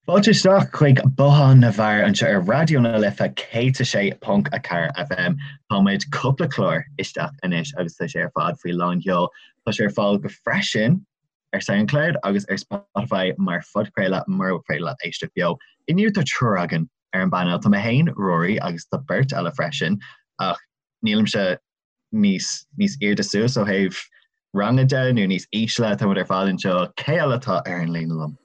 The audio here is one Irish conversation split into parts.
Fáilte isteach chuig Bothán na bhFear anseo ar Raidió na Life 106.4 FM. Tá muid cúpla clár isteach anois agus tá sé ar fad faoi lán sheol. Tá sé ar fáil go freisin ar Soundcloud agus ar Spotify mar phodchraoladh mura féidir leat éisteacht beo. Inniu tá triúr againn ar an bpainéal. Tá mé féin, Ruairí, agus tá beirt eile freisin ach nílimse níos níos airde suas ó thaobh ranga de nó níos ísle, tá muid ar fad anseo. Cé eile atá ar an líne liom?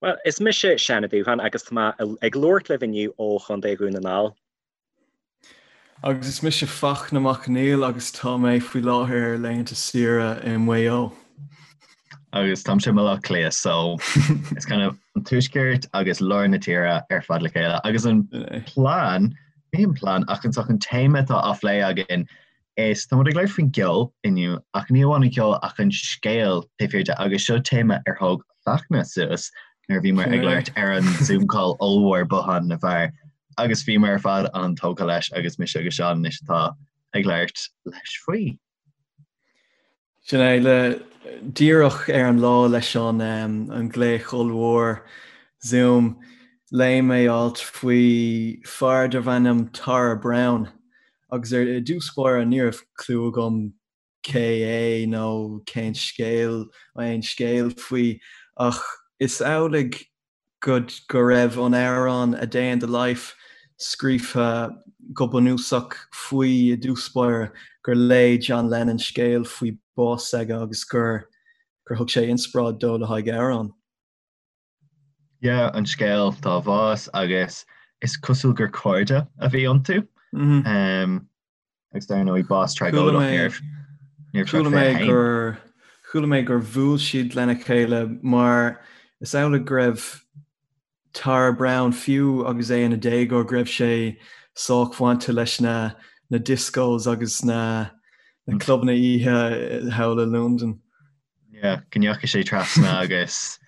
Bhuel, is mise Seán Ó Dúcháin agus tá mé ag labhairt libh inniu ó Chontae Dhún na nGall. Agus is mise Fachtna Mac Conghail agus tá mé faoi láthair ar laethanta saoire i Maigh Eo. Agus táimse i mBaile Átha Cliath, so it's kind of an tuaisceart agus lár na tíre ar fad le chéile. Agus an plean, ní an plean, ach an an téama atá á phlé againn Is tá muid ag labhairt faoin gceol inniu, ach ní amháin an ceol ach an scéal taobh thiar de agus seo téama ar thóg Fachtna suas nuair a bhíomar ag labhairt ar an Zoom call ollmhór Bothán na bhFear agus bhíomar ar fad an-tógtha leis agus mise agus Seán anois atá ag labhairt leis faoi. Sin é, le díreach ar an lá leis an an glaoch ollmhór Zoom, léigh mé alt faoi fear darbh ainm Tara Browne agus ar i dtús báire ní raibh clue agam cé é nó cén scéal, aon scéal faoi ach is amhlaidh go go raibh an amhrán A Day in the Life scríofa go bunúsach faoi i dtús báire, gur léigh John Lennon scéal faoi bás s'aige agus gur gur thug sé inspioráid dó le haghaidh amhrán. Yeah, an scéal dá bhás agus is cosúil gur cairde a bhí iontu. Um, Agus dar ndóigh bás tragóideach ní raibh sé Chuala mé gur chuala mé gur bhuail siad lena chéile mar is amhlaidh go raibh Tara Browne fiú agus é ina déagóir go raibh sé sách bainte leis na na discos agus na na clubanna oíche thall i Londain. Yeah, go ndeachaigh sé trasna agus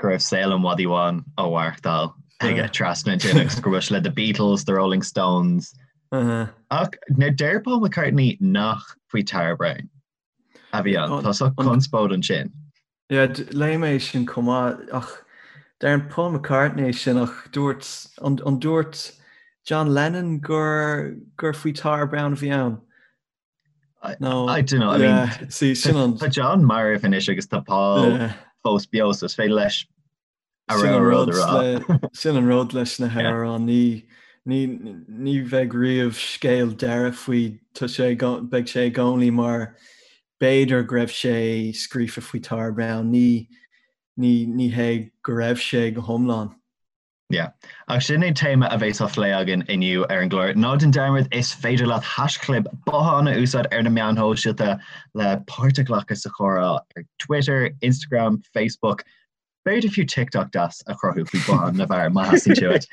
go raibh saol an mhadaidh bháin á mhaireachtáil aige trasna ansin agus go raibh sé le The Beatles, The Rolling Stones. Ach now deir Paul McCartney nach faoi Tara Browne a bhí ann. Tá sórt conspóid ansin. Yeah, léigh mé sin chomh maith ach deireann Paul McCartney sin ach dúirt an dúirt John Lennon gur gur faoi Tara Browne a bhí ann? No, I don't know. I mean, see, sin an... Tá John marbh anois agus tá Paul fós beo, so is féidir leis a rá rud a rá. Sin an rud leis na hamhráin, ní ní ní bheidh riamh scéal deiridh faoi tá sé beidh sé i gcónaí mar b'fhéidir go raibh sé scríofa faoi Tara Browne, ní ní ní hé go raibh sé go hiomlán. Yeah. Ach sin é téama a bheas á phlé againn inniu ar an gclár. Ná déan dearmad, is féidir leat haischlib bothán a úsáid ar na meáin shóisialta le páirt a ghlacadh sa chomhrá ar Twitter, Instagram, Facebook, b'fhéidir fiú TikTok deas a chruthú faoi Bothán na bhFear má theastaíonn sé uait.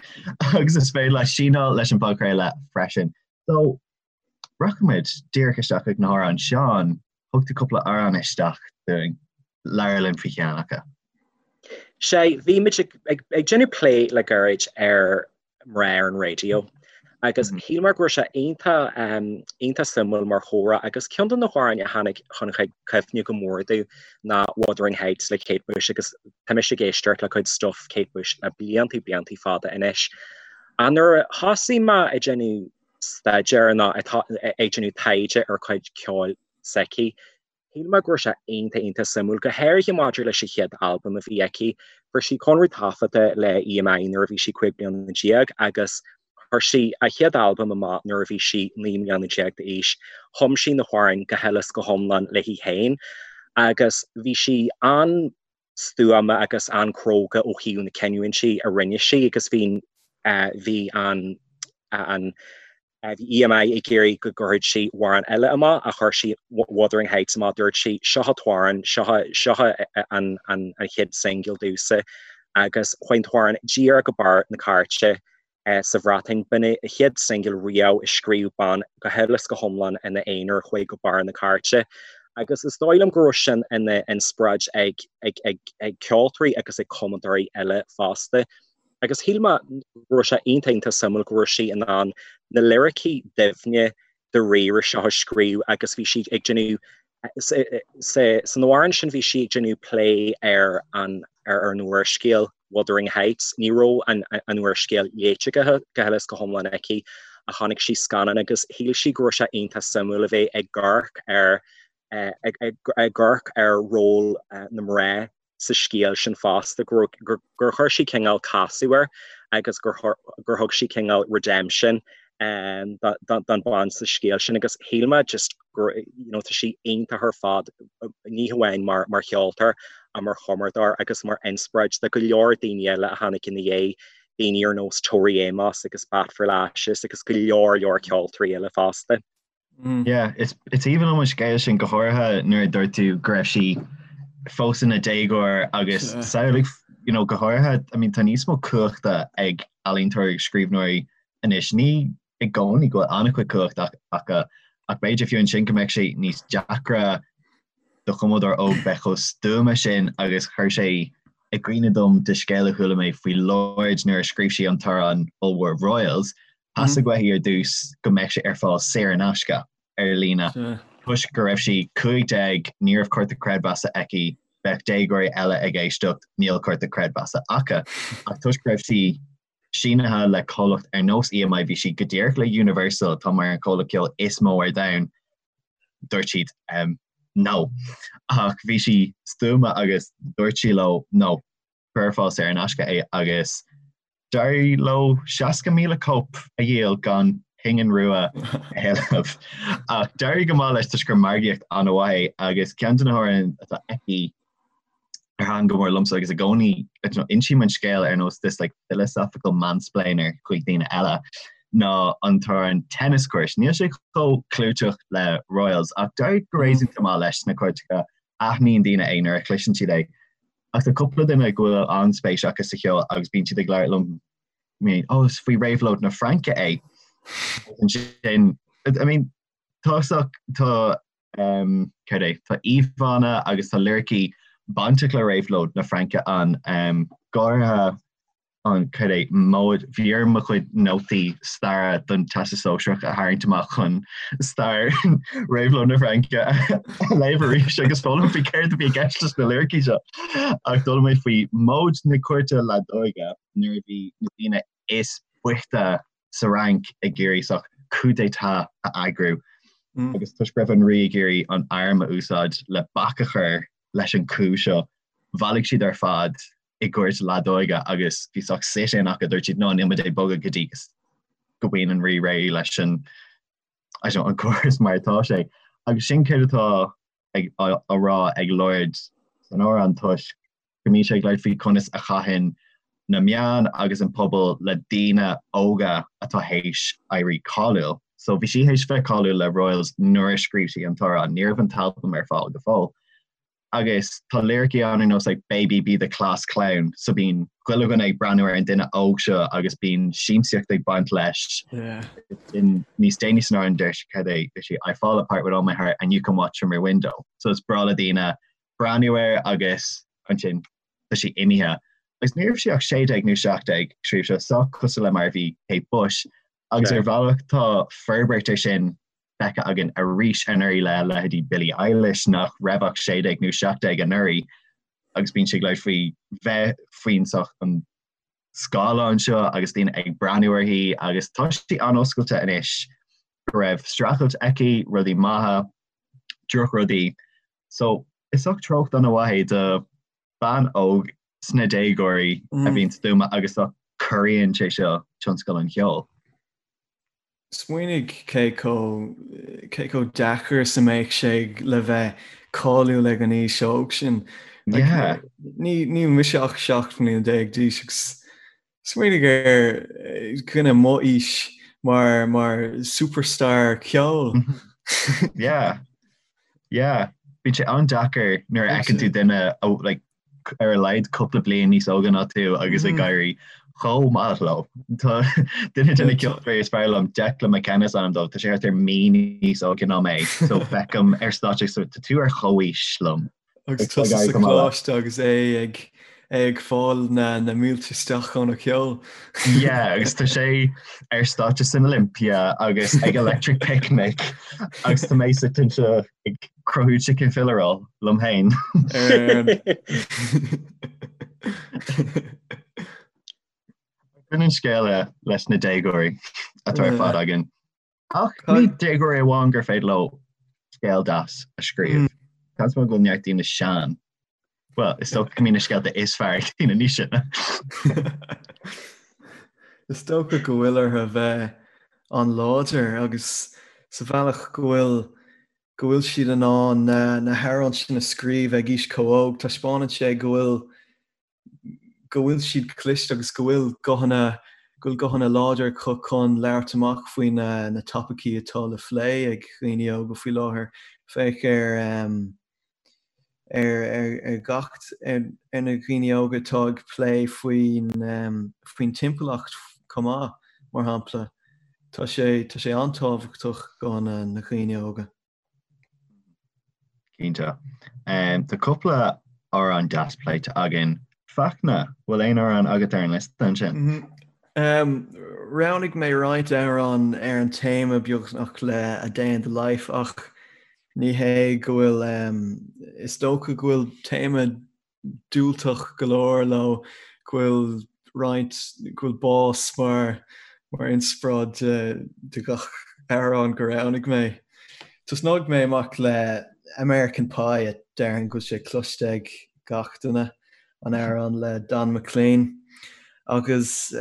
Agus is féidir leat síneáil leis an bpodchraoladh freisin. So, rachaimid díreach isteach ag na hamhráin. Seán, Thug tú cúpla amhrán isteach dúinn. Labhair linn faoi cheann acu. Sea, bhí muid ag déanamh plé le gairid ar mná ar an raidió agus shíl mé go raibh sé iontach iontach suimiúil mar chomhrá agus ceann de na hamhráin a tháinig chun cuimhne go mór domh ná Wuthering Heights le Kate Bush agus tá mise ag éisteacht le cuid stuff Kate Bush le blianta blianta fada anois. Ach nuair a thosaigh mé ag déanamh staidéar nó ag déanamh taighde ar chuid ceoil s'aici. Shíl mé go raibh sé iontach iontach suimiúil, go háirithe maidir leis an chéad albam a bhí aici. Fuair sí conradh taifeadta le EMI nuair a bhí sí 15 bliana agus chuir sí a chéad albam amach nuair a bhí sí 19 mbliana d'aois. Chum sí na hamhráin go huile is go hiomlán léi féin agus bhí sí an stuama agus an-chróga ó thaobh na cinniúintí a rinne sí agus bhí bhí an an bhí EMI ag iarraidh go gcuirfeadh sí amhrán eile amach ach chuir sí Wuthering Heights amach dúirt sí seo an t-amhrán seo seo an an an chéad singil domhsa agus chuaigh an t-amhrán díreach go barr na cairte sa Bhreatain. B'in é a chéad singil riamh a scríobh bean go huile is go hiomlán ina aonar a chuaigh go barr na cairte. Agus is dóigh liom go raibh sin ina inspioráid ag ag ag ceoltóirí agus ag cumadóirí eile fosta. Agus shíl mé go raibh sé iontach iontach suimiúil go raibh sí in ann na liricí doimhne dáiríre seo a scríobh agus bhí sí ag déanamh san amhrán sin bhí sí ag déanamh plé ar an ar an úrscéal. Wuthering Heights. Ní raibh an úrscéal léite go huile is go hiomlán aici ach chonaic sí scannán agus shíl sí go raibh sé iontach suimiúil a bheith ag amharc ar ag amharc ar ról na mná sa scéal sin fosta, gur chuir sí cineál casadh air agus gur thug sí cineál redemption don bhean sa scéal sin agus shíl mé just gur you know tá sí iontach ar fad ní hamháin mar mar cheoltóir ach mar chumadóir agus mar inspioráid do go leor daoine eile a tháinig ina dhiaidh, daoine ar nós Tori Amos agus Bat for Lashes agus go leor leor ceoltóirí eile fosta. Yeah, is is aoibhinn liom an scéal sin go háirithe nuair a dúirt tú go raibh sí fós ina déagóir agus samhlaigh you know, go háirithe I mean, tá níos mó cumhachta ag ealaíontóirí agus scríbhneoirí anois. Ní i gcónaí go bhfuil an-chuid cumhachta acu ach b'fhéidir fiú ansin go mbeadh sé níos deacra do chumadóir óg bheith chomh stuama sin agus chuir sé i gcuimhne dom de scéal a chuala mé faoi Lorde nuair a scríobh sí an t-amhrán ollmhór Royals Theastaigh uaithi ar dtús go mbeadh sé ar fáil saor in aisce ar líne. Toisc go raibh sí 15, ní raibh cárta creidmheasa aici, bheadh déagóirí eile ag éisteacht, níl cárta creidmheasa acu. Ach toisc go raibh sí sínithe le comhlacht ar nós EMI, bhí sí go díreach le Universal, atá mar an comhlacht ceoil is mó ar domhan, dúirt siad no. Ach bhí sí stuama agus dúirt sí leo no, cuir ar fáil saor in aisce é agus D'éirigh leo 60,000 cóip a dhíol gan pingin rua a thuilleamh. Ach d'éirigh go maith leis toisc gur margaíocht an-mhaith é agus ceann de na hamhráin atá aici ar thaitin go mór liomsa agus i gcónaí insím an scéal ar nós this like philosophical mansplainer chuig daoine eile ná an t-amhrán Tennis Court. Níl sé chomh clúiteach le Royals ach d'éirigh go réasúnta maith leis sna cairteacha aithníonn daoine é nuair a chloiseann siad é. Ach tá cúpla duine go bhfuil an-spéis acu sa cheol agus bíonn siad ag labhairt liom, I mean, oh, is faoi réabhlóid na Fraince é. Ansin, I mean, tá tá um, céard é, tá íomhánna agus tá liricí bainteach le réabhlóid na Fraince an um, go háirithe an céard é móid, bhí orm mo chuid nótaí staire don Teastas Sóisearach a tharraingt amach chun stair Réabhlóid na Fraince a léamh arís agus foghlaim faoi céard a bhí i gceist leis na liricí seo. Ach d'fhoghlaim mé faoi móid na cúirte leadóige nuair a bhí na daoine is boichte sa Fhrainc ag iarraidh saghas coup d'état a eagrú agus toisc go raibh an rí ag iarraidh an arm a úsáid le bac a chur leis an coup seo, bhailigh siad ar fad i gcúirt leadóige agus bhí saghas sit-in acu, dúirt siad, no, níl muid ag bogadh go dtí go mbíonn an rí réidh leis an, I don't know, an córas mar atá sé. Agus sin céard atá ag, á, á rá ag Lorde san amhrán toisc go mbíonn sé ag labhairt faoi conas a chaitheann na meáin agus an pobal le daoine óga atá théis éirí cáiliúil. So bhí sí théis bheith cáiliúil le Royals nuair a scríobh sí an t-amhrán, ní raibh an t-albam ar fáil go fóill. Agus tá liricí ann ar nós like baby be the class clown so bíonn chuile dhuine ag breathnú ar an duine óg seo agus bíonn siamsaíocht ag baint leis. Yeah. In níos déanaí san amhrán deir sí cad é deir sí I fall apart with all my heart and you can watch from your window. So is breá le daoine breathnú air agus ansin tá sí imithe. Agus ní raibh sí ach 16 nó 17 scríobh seo sách cosúil le mar a bhí Kate Bush agus ar bhealach tá forbairt ar sin feicthe againn arís anuraidh le leithéidí Billie Eilish nach raibh ach 16 nó 17 anuraidh agus bíonn sí ag labhairt faoi bheith faoin saghas an scáileán seo agus daoine ag breathnú uirthi agus tá sí an-oscailte anois go raibh streachailt aici, rudaí maithe, drochrudaí. So is saghas treocht an-mhaith é do bean óg sna déagóirí a bhíonn stuama agus corraíonn sé seo tionscal an cheoil. Smaoinigh cé chomh, cé chomh deacair is a mbeadh sé le bheith cáiliúil ag an aois óg sin. Like, Yeah. ní, níl mise ach 17 mbliana d'aois agus smaoinigh ar dhuine mo aois mar, mar superstar ceoil. Yeah. Yeah. Bíonn sé an-deacair nuair a fheiceann tú duine ó, like, ar a laghad cúpla bliain níos óige ná tú agus ag éirí chomh maith leo. Tá duine de na ceoltóirí is fearr liom, Declan McKenna is ainm dó, tá sé thart ar mí níos óige ná mé, so feicim ar stáitse so tá tú ar chomhaois liom. Agus tusa sa choláiste agus é ag ag fáil na na mílte isteach óna cheol. Yeah, agus tá sé ar stáitse san Olympia agus ag Electric Picnic agus tá mé suite anseo ag cruthú chicken fillet roll liom féin. Sin an scéal leis na déagóirí atá ar fad againn. Ach ní déagóirí amháin gur féidir leo scéal deas a scríobh. Seans maith go bhfuil neart daoine sean. Bhuel, is dócha go mbíonn na scéalta is fearr ag daoine níos sine. Is dócha go bhfuil orthu bheith an-láidir agus sa bhealach go bhfuil go bhfuil siad in ann na hamhráin sin a scríobh ag aois chomh óg, taispeánann sé go bhfuil go bhfuil siad cliste agus go bhfuil guthanna, go bhfuil guthanna láidir acu chun labhairt amach faoi na na topaicí atá le phlé ag dhaoine óga faoi láthair. Féach ar ar ar ar gach ar ar na dhaoine óga atá ag plé faoin faoin timpeallacht chomh maith, mar shampla. Tá sé tá sé an-tábhachtach guthanna na dhaoine óga. Cinnte. Tá cúpla amhrán deas pléite againn. Fachtna, bhfuil aon amhrán agat ar an liosta ansin? Roghnaigh mé roinnt amhrán ar an téama beagnach le A Day in the Life ach ní hé go bhfuil, is dócha go bhfuil téama diúltach go leor leo, go bhfuil roinnt, go bhfuil bás mar mar inspioráid de de gach amhrán gur roghnaigh mé. Tosnóidh mé amach le American Pie a déarfainn go bhfuil sé cloiste ag gach duine, an amhrán le Don McLean agus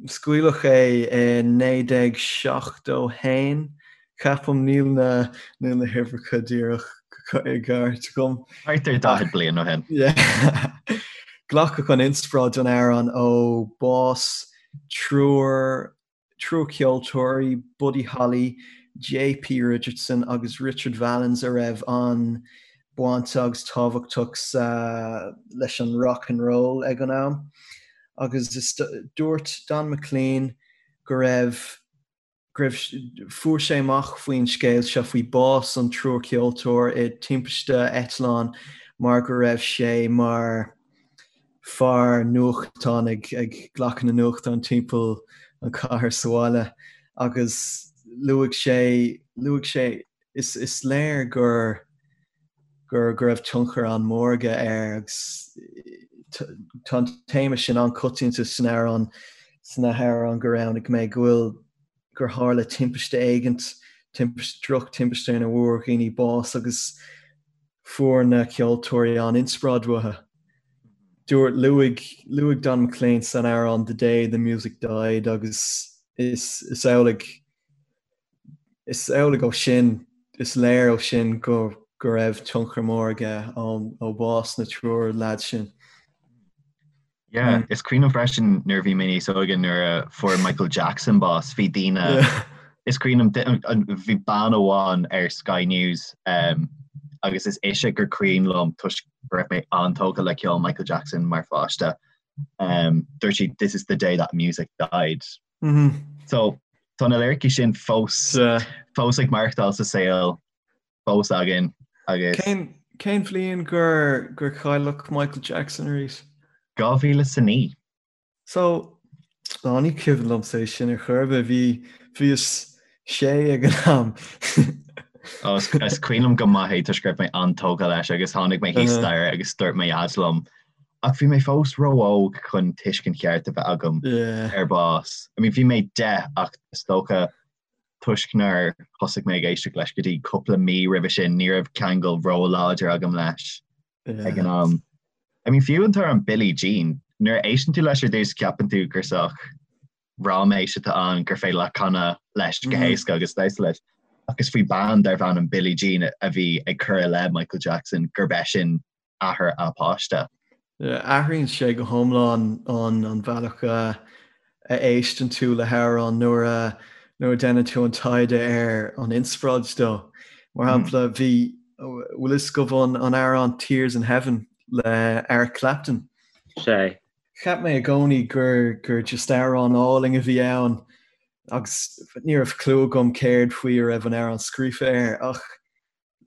Scaoileadh é i 1971, ceapaim, níl na níl na huimhreacha díreach i gceart agam. Thart ar 40 bliain ó shin. Glacadh an inspioráid don amhrán ó bás triúr triúr ceoltóirí, Buddy Holly, JP Richardson agus Richard Valens a raibh an-baint agus tábhachtach sa leis an rock and roll ag an am. Agus dúirt Don McLean go raibh, go raibh, fuair sé amach faoin scéal seo, faoi bás an triúr ceoltóir i timpiste eitleáin mar go raibh sé mar fear nuachtán ag ag glacadh na nuachtán timpeall an chathair sa bhaile agus luaigh sé, luaigh sé, is, is léir gur, gur go raibh tionchar an-mhór aige air agus tá an téama sin an-choitianta san amhrán, sna hamhráin gur roghnaigh mé, go bhfuil, gur tharla timpiste éigint, timpiste, droch-timpiste ina bhfuair dhaoine bás agus fuair na ceoltóirí an-inspioráid uathu. Dúirt, luaigh, luaigh Don McLean san amhrán The Day the Music Died agus is, is amhlaidh, Is amhlaidh ó sin, is léir ó sin go go raibh tionchar mór aige ó bhás na triúr leaid sin. Yeah, is cuimhin liom freisin nuair a bhí mé níos óige nuair a fuair Michael Jackson bás, bhí daoine, is cuimhin liom, bhí bean amháin ar Sky News um, agus is ise gur cuimhin liom toisc go raibh mé an-tógtha le ceol Michael Jackson mar pháiste. Um, dúirt sí, this is the day that music died. So tá na liricí sin fós fós ag maireachtáil sa saol fós againn agus. Cén cén bhliain gur gur cailleadh Michael Jackson arís? 2009. So á ní cuimhin liomsa é sin ar chor ar bith, bhí bhíos sé ag an am. Ó is is cuimhin liom go maith é toisc go raibh mé an-tógtha leis agus tháinig mé thíos staighre agus dúirt mo dhaid liom Ach bhí mé fós ró-óg chun tuiscint cheart a bheith agam ar bás. I mean bhí mé 10 ach is dócha toisc nár thosaigh mé ag éisteacht leis go dtí cúpla mí roimhe sin ní raibh ceangal ró-láidir agam leis ag an am. I mean fiú an t-amhrán Billie Jean, nuair a éisteann tú leis ar dtús ceapann tú gur sách ráiméis atá ann gur féidir leat canadh leis go héasca agus damhsa leis. Ach is faoi bean darbh ainm Billie Jean a bhí ag cur i leith Michael Jackson gurb eisean athair a páiste. Athraíonn sé go hiomlán an an bhealach a a éisteann tú le hamhrán nuair a nuair a déanann tú an taighde ar an inspioráid dó. Mar shampla, bhí bhfuil fhios agaibh an an amhrán Tears in Heaven le Eric Clapton? Sé. Cheap mé i gcónaí gur gur just amhrán álainn a bhí ann agus ní raibh clue agam céard faoi a raibh an amhrán scríofa air ach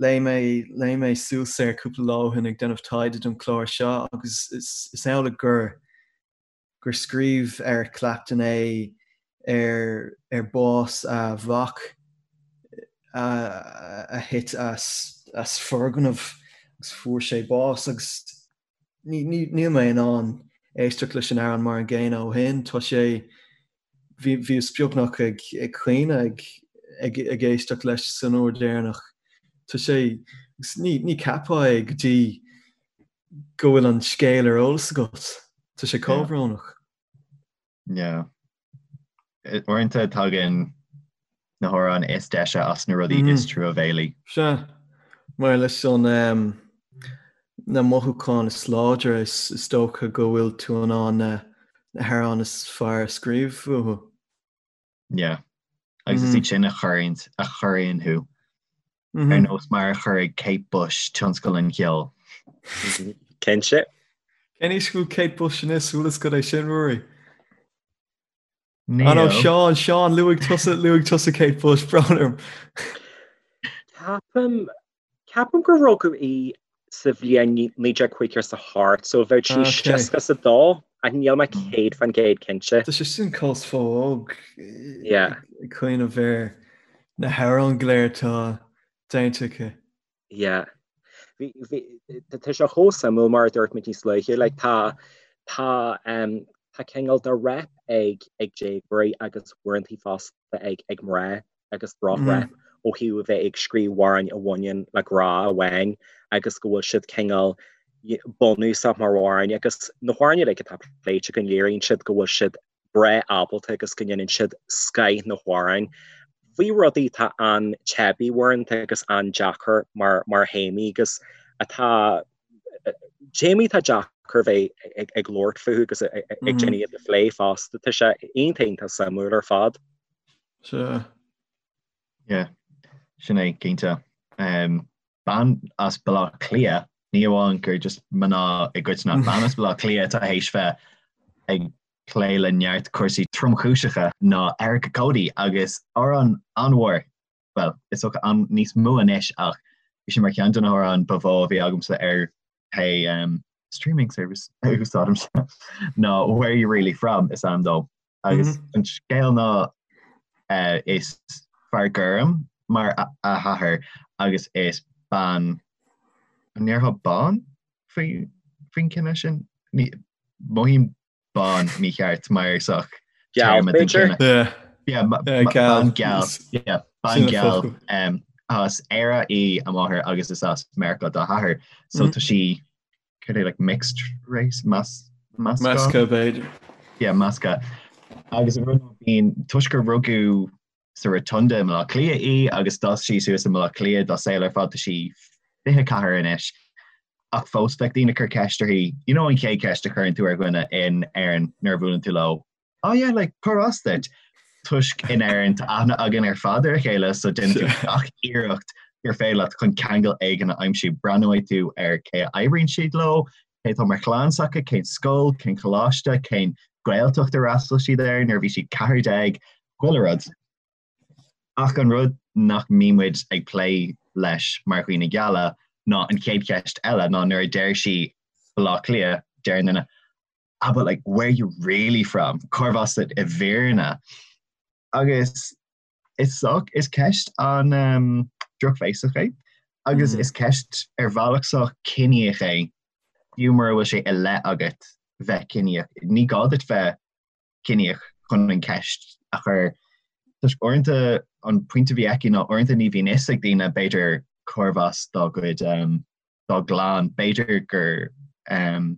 Léigh mé, léigh mé suas air cúpla lá ó shin ag déanamh taighde don chlár seo agus is, is amhlaidh gur, gur scríobh Eric Clapton é ar, ar bás a mhac a, a thit as, as foirgneamh agus fuair sé bás agus ní, ní, níl mé in ann. éisteacht leis an amhrán mar an gcéanna ó shin. Tá sé, bhí, bhíos beagnach ag, ag caoineadh ag, ag, ag éisteacht leis san uair deireanach. Tá sé, agus ní, ní cheapfá é go dtí go bhfuil an scéal ar eolas agat. Tá sé chomh brónach. Yeah. Uaireanta tagann na hamhráin is deise as na rudaí is truamhéalaí. Sea. Mar leis an na mothúcháin is láidre is dócha go bhfuil tú in ann na hamhráin is fearr a scríobh uathu. Yeah. Agus is iad sin a chuireann a chorraíonn thú. Ar nós mar a chorraigh Kate Bush tionscal an cheoil. Cinnte. Cén aois go bhfuil Kate Bush anois? Bhfuil fhios agat é sin, Ruairí? Ah no, Seán, Seán, luaigh tusa, luaigh tusa Kate Bush, brón orm. Ceapaim, ceapaim gur rugadh í sa bhliain 1958, so bheadh sí 62, ach níl mé 100% cinnte. Tá sé sin chomh fo-óg ag cuimhneamh ar na hamhráin go léir atá déanta aici. Yeah. Bhí, bhí, tá sé chomh suimiúil mar a dúirt muid níos luaithe, like tá, tá, um, tá cineál de rep ag, ag déagóirí agus uaireanta fosta ag, ag mná agus droch-rep ó thaobh a bheith ag scríobh amhráin a bhaineann le grá amháin agus go bhfuil siad cineál bunúsach mar amhráin agus na hamhráin uilig atá pléite againn léiríonn siad go bhfuil siad breá ábalta agus go ndéanann siad scoth na hamhráin faoi rudaí atá an-teibí uaireanta agus an-deacair mar mar théamaí agus atá téamaí atá deacair bheith ag ag labhairt fúthu agus ag déanamh iad a phlé fosta. Tá sé iontach iontach suimiúil ar fad. Sea. Yeah, sin é, cinnte. Um, bean as Baile Átha Cliath, ní amháin gur just mná i gcoitinne, bean as Baile Átha Cliath atá théis bheith ag plé le neart cúrsaí tromchúiseacha ná Erica Cody agus amhrán an-mhór, bhuel, is dócha an níos mó anois ach bhí sé mar cheann de na hamhráin ba mhó a bhí agamsa ar pé um, streaming service a úsáidimse ná Where You Really From is ainm dó. Agus an scéal ná uh, is fear gorm mar a, a hathair agus is bean an ndéarfá bán faoi faoin cine sin? Ní mothaím bán mícheart mar sách Geal, téarma den b'fhéidir? cine. Yeah. Yeah, ma- Yeah, ma- geal. bean geal. Yeah, bean Sin an geal. focal. Um, as Éire í a máthair agus is as Meiriceá dá hathair. So tá sí cad é like mixed race mas meascán? Measctha b'fhéidir. Yeah, measctha. Agus an rud ná bíonn toisc gur rugadh sa Rotunda i mBaile Átha Cliath í agus d'fhás sí suas i mBaile Átha Cliath dá saol ar fad tá sí 24 anois. Ach fós bheadh daoine ag cur ceist uirthi, you know an chéad cheist a chuireann tú ar dhuine in Éirinn nuair a bhuaileann tú leo, Oh yeah, like, cárb as duit? Toisc in Éirinn tá aithne againn ar fad ar a chéile so déanann tú gach iarracht gur féidir leat chun ceangal éigin a aimsiú. Breathnóidh tú ar cé a oibríonn siad leo, cé atá mar chlann s'acu, cén scoil, cén choláiste, cén Gaeltacht ar fhreastail siad air nuair a bhí siad 14, chuile rud. Ach an rud nach mbíonn muid ag plé leis mar dhaoine geala ná an chéad cheist eile ná nuair a deir sí Baile Átha Cliath, deir an duine, ah but like where you really from? Cárb as duit i bhfírinne? Agus is sách, is ceist an um, drochbhéasach é agus mm. is ceist ar bhealach sách ciníoch é fiú mura bhfuil sé i leith agat bheith ciníoch. Ní gá duit bheith ciníoch chun an ceist a chur. Toisc uaireanta an pointe a bhí aici ná uaireanta ní bhíonn fhios ag daoine b'fhéidir cárb as dá gcuid um, dá gclann, b'fhéidir gur um,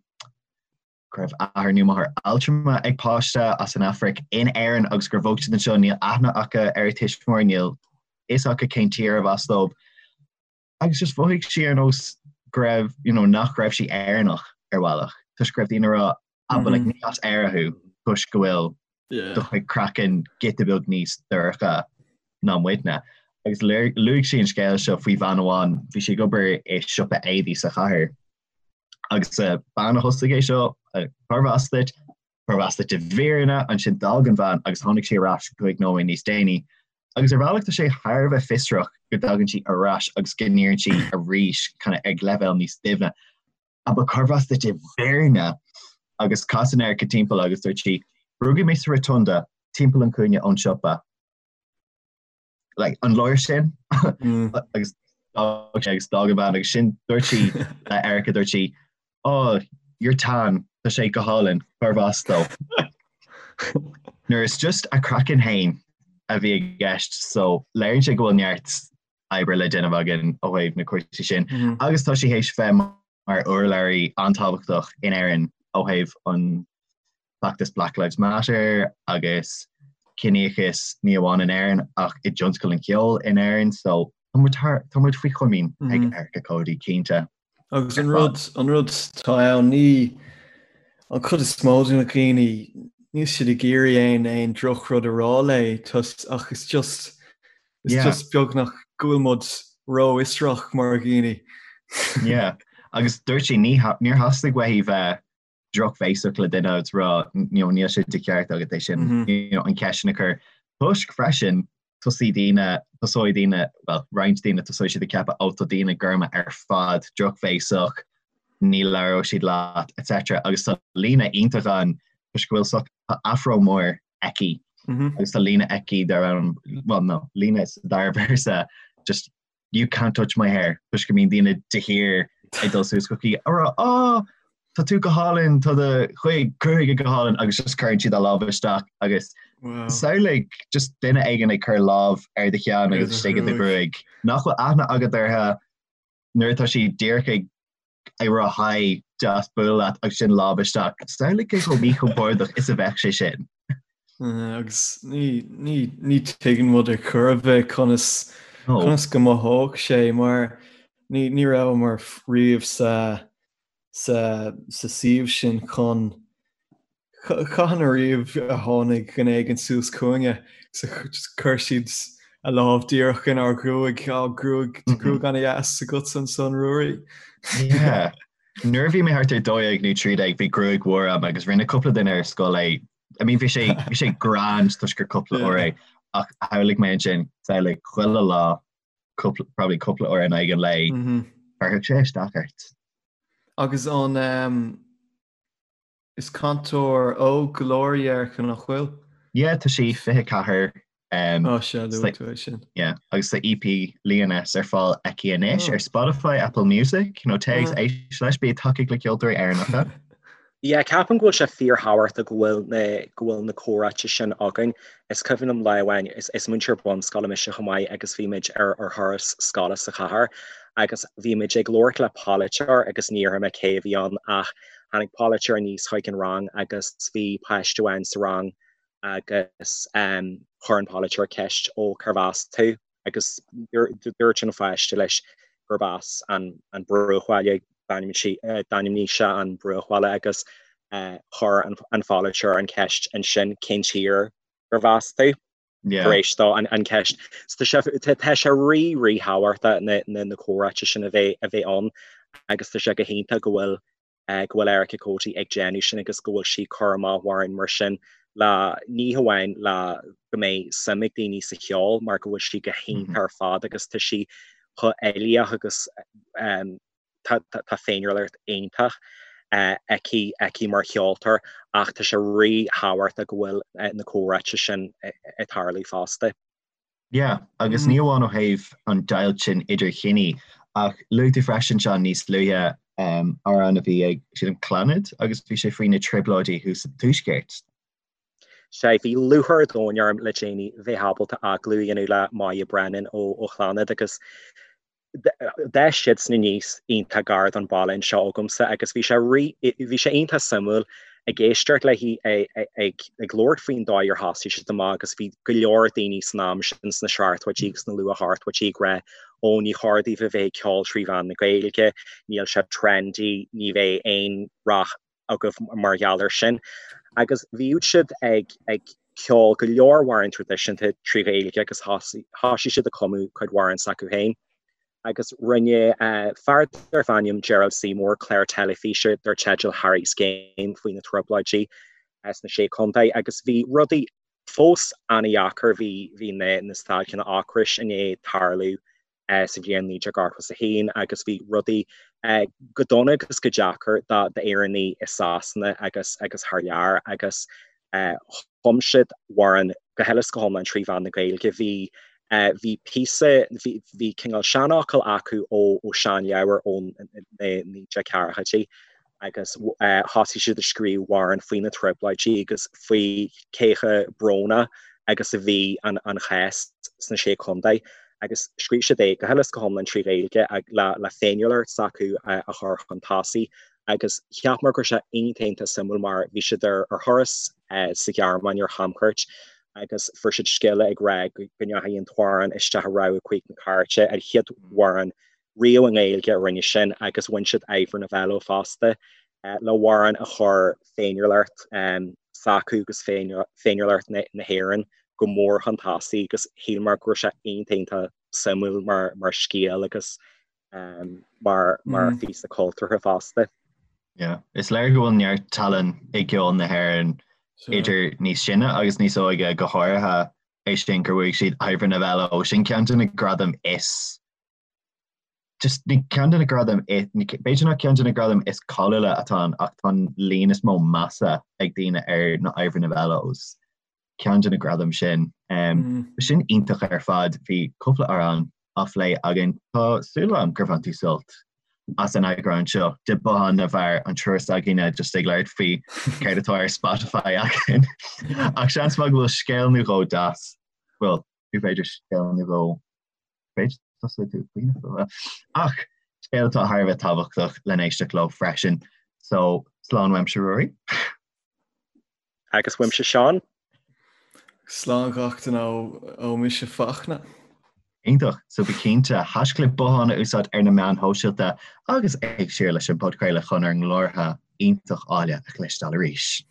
go raibh athair nó máthair altrama ag páiste as an Afraic in Éirinn agus gur bhog siad anseo, níl aithne acu ar a tuismitheoir, níl fhios acu cén tír arbh as dóibh. Agus just mhothaigh sí ar nós go raibh, you know, nach raibh sí Éireannach ar bhealach, toisc go raibh daoine ag rá, ah, but like, ní as Éire thú, toisc go bhfuil do chuid craiceann giota beag níos dorcha ná muidne. Agus luaigh sí an scéal seo faoi bhean amháin, bhí sí ag obair i siopa éadaí sa chathair, Agus bean a thosaigh é seo, cárb as duit? Cárb as duit i bhfírinne? Ansin d'fhág an bhean agus tháinig sí ar ais cúig nóiméad níos déanaí. Agus ar bhealach tá sé thar a bheith fiosrach go dtagann sí ar ais agus go n-iarrann sí arís kind of ag leibhéal níos doimhne. Ah but cárb as duit i bhfírinne? Agus casann Erica timpeall agus dúirt sí, Rugadh mé sa Rotunda, timpeall an chúinne ón siopa. like, an leor sin mm. agus agus d'fhág an bhean agus ansin dúirt sí le Erica dúirt sí oh you're tan. Tá sé go hálainn, cárb as dó? Nuair is just a craiceann féin a bhí i gceist so léiríonn sé go bhfuil neart oibre le déanamh againn ó thaobh na cúrsaí sin. Agus tá sí théis bheith mar urlabhraí an-tábhachtach in Éirinn ó thaobh an feachtas Black Lives Matter agus ciníochas ní amháin in Éirinn ach i dtionscal an cheoil in Éirinn so tá muid thar, tá muid faoi chomaoin ag Erica Cody cinnte. Agus an rud, an rud atá ann ní, an chuid is mó de na daoine, níl siad ag iarraidh aon, aon drochrud a rá léi ach is just, is just beagnach go bhfuil muid rófhiosrach mar dhaoine. Yeah, agus dúirt sí ní, níor theastaigh uaithi bheith drochbhéasach le duine agus rá you know, níl sé de cheart agat é sin you know, an cheist sin a chur. Toisc freisin tosóidh daoine, tosóidh daoine, well, roinnt daoine tosóidh siad ag ceapadh ó tá daoine gorma ar fad drochbhéasach, ní labhróidh siad leat, etc. Agus tá líne iontach ann toisc go bhfuil so, tá afro mór aici agus tá líne aici dar ainm, well no, líne sa dara véarsa just you can't touch my hair toisc go mbíonn daoine de shíor ag dul suas chuici ag rá oh tá tú go hálainn tá do chuid gruaige go hálainn agus just cuireann siad a lámh isteach agus wow. samhlaigh just duine éigin ag cur lámh ar do cheann agus istigh i do ghruaig nach bhfuil aithne agat orthu nuair atá siad díreach ag ag rá hi deas bualadh leat agus sin lámh isteach. Samhlaigh cé chomh míchompordach is a bheadh sé sin. Agus ní ní ní tuigeann muid ar chor ar bith conas conas go mothódh sé mar ní ní rabhamar riamh sa sa sa suíomh sin chun Cathain ariamh a tháinig duine éigin suas chugainne just chuir siad a lámh díreach inár ngruaig, á gruaig, tá gruaig ana-dheas agatsa ansan, Ruairí. Yeah. Nuair a bhí mé thart ar 12 nó 13 bhí gruaig mhór agam agus rinne cúpla duine ar scoil é. I mean bhí sé bhí sé grand toisc gur cúpla uair é ach shamhlaigh mé ansin samhlaigh chuile lá cúpla probably cúpla uair in aghaidh an lae chuirfeadh sé isteach ort. Agus an um, Is cainteoir óg go leor í Erica, nach bhfuil? Yeah, tá sí 24. Um, oh, sea, luaigh tú é sin. Yeah, agus tá EP Lioness ar fáil aici anois ar Spotify, Apple Music, you know, téigh éist leis, bí ag tacaíocht le ceoltóirí Éireannacha. Yeah, ceapaim go bhfuil sé fíorthábhachtach go bhfuil na go bhfuil na comhráite sin againn. Is cuimhin liom lá amháin, is is múinteoir bunscoile mise chomh maith agus bhí muid ar ar thuras scoile sa chathair agus bhí muid ag labhairt le polaiteoir agus ní déarfaidh mé cé a bhí ann ach Tháinig polaiteoir aníos chuig an rang agus bhí páiste amháin sa rang agus chuir an polaiteoir ceist ó cérbh as tú agus dúirt an pháiste leis gurb as an bruachbhaile d'ainmnigh sé an bruachbhaile agus chuir an pholaiteoir an ceist ansin cén tír gurbh as tú tar éis dó an ceist. So tá sé rí ríthábhachtach na comhráite sin a bheith a bheith ann agus tá sé go hiontach go bhfuil go bhfuil Erica Cody ag déanamh sin agus go bhfuil sí ag cur amach amhráin mar sin le ní hamháin le go mbeidh suim ag daoine sa cheol mar go bhfuil sí go hiontach ar fad agus tá sí chomh uilíoch agus tá féiniúlacht iontach aici aici mar cheoltóir ach tá sé ríthábhachtach go bhfuil na comhráite sin ag tarlú fosta. Yeah, agus ní amháin ó thaobh an deighilt sin idir chiní, ach luaigh tú freisin, Seán, níos luaithe amhrán a bhí ag, sílim, Clannad agus bhí sé faoi na trioblóidí thuas sa Tuaisceart. Sea, bhí lúcháir an domhain orm le déanaí bheith ábalta agallamh a dhéanamh le Moya Brennan ó Chlannad agus D'fhás siadsan aníos iontach gar don bhaile anseo agamsa agus bhí sé rí, bhí sé iontach suimiúil ag éisteacht léi ag labhairt faoin dóigh ar thosaigh siad amach agus bhí go leor daoine san am sin sna seachtóidí agus sna luath-ochtóidí ag rá ó ní chóir daoibh a bheith ag ceol trí mheán na Gaeilge, níl sé trendy, ní bheidh aon rath agaibh mar gheall air sin. Agus bhíodh siad ag ag ceol go leor amhrán traidisiúnta trí Ghaeilge agus thosaigh siad ag cumadh cuid amhrán s'acu féin. Agus rinne fear darbh ainm Gerald Seymour clár teilifíse dar teideal Harry's Game faoi na Trioblóidí sna Sé Chontae agus bhí rudaí fós an-dheacair, bhí bhí na na stailceanna ocrais i ndiaidh tarlú sa bhliain 1981 agus bhí rudaí go dona agus go deacair d'Éireannaigh i Sasana agus agus thar lear agus chum siad amhrán go huile is go hiomlán trí mheán na Gaeilge. Bhí bhí píosa, bhí bhí cineál seanfhocal acu ó ó seanleabhar ón 1940idí. Agus thosaigh siad ag scríobh amhrán faoi na trioblóidí agus faoi cé chomh brónach agus a bhí an chás sna Sé Chontae. Agus scríobh siad é go huile is go hiomlán trí Ghaeilge le féiniúlacht s'acu a chur chun tosaigh. Agus cheapamar go raibh sé iontach iontach suimiúil mar bhí siad ar thuras sa Ghearmáin ar chamchuairt agus fuair siad scéala ag rá go ndeachaigh an t-amhrán isteach i rogha 5 na cairte, an chéad amhrán riamh i nGaeilge a rinne sin agus bhain siad Ivor Novello fosta le hamhrán a chuir féiniúlacht s'acu agus féiniúlacht na hÉireann go mór chun tosaigh agus shíleamar go raibh sé iontach iontach suimiúil mar scéal agus mar mar phíosa cultúrtha fosta. Yeah. Is léir go bhfuil neart tallann i gceol na hÉireann idir níos sine agus níos óige go háirithe é sin gur bhuaigh siad Ivor Novello sin ceann de na gradaim is just ní ceann de na gradaim b'fhéidir nach ceann de na gradaim is cáiliúla atá ann ach tá an líon is mó measa ag daoine ar na Ivor Novellos ceann de na gradaim sin. Sin iontach ar fad, bhí cúpla amhrán á phlé againn. Tá súil agam gur bhain tú sult as an eagrán seo de Bothán na bhFear, an triúr s'againne just ag labhairt faoi céard atá ar Spotify againn. Ach seans maith go bhfuil scéal nó dhó deas, bhuel, b'fhéidir scéal nó dhó b'fhéidir tusa tú faoina ach scéal atá thar a bheith tábhachtach le n-éisteacht leo freisin. So slán uaimse Ruairí. Agus uaimse Seán. Slán gach duine ó mise Fachtna. Iontach, so bí cinnte haischlib bothán a úsáid ar na meáin shóisialta agus éist siar leis an bpodchraoladh chun ár nglórtha iontach áille a chloisteáil arís.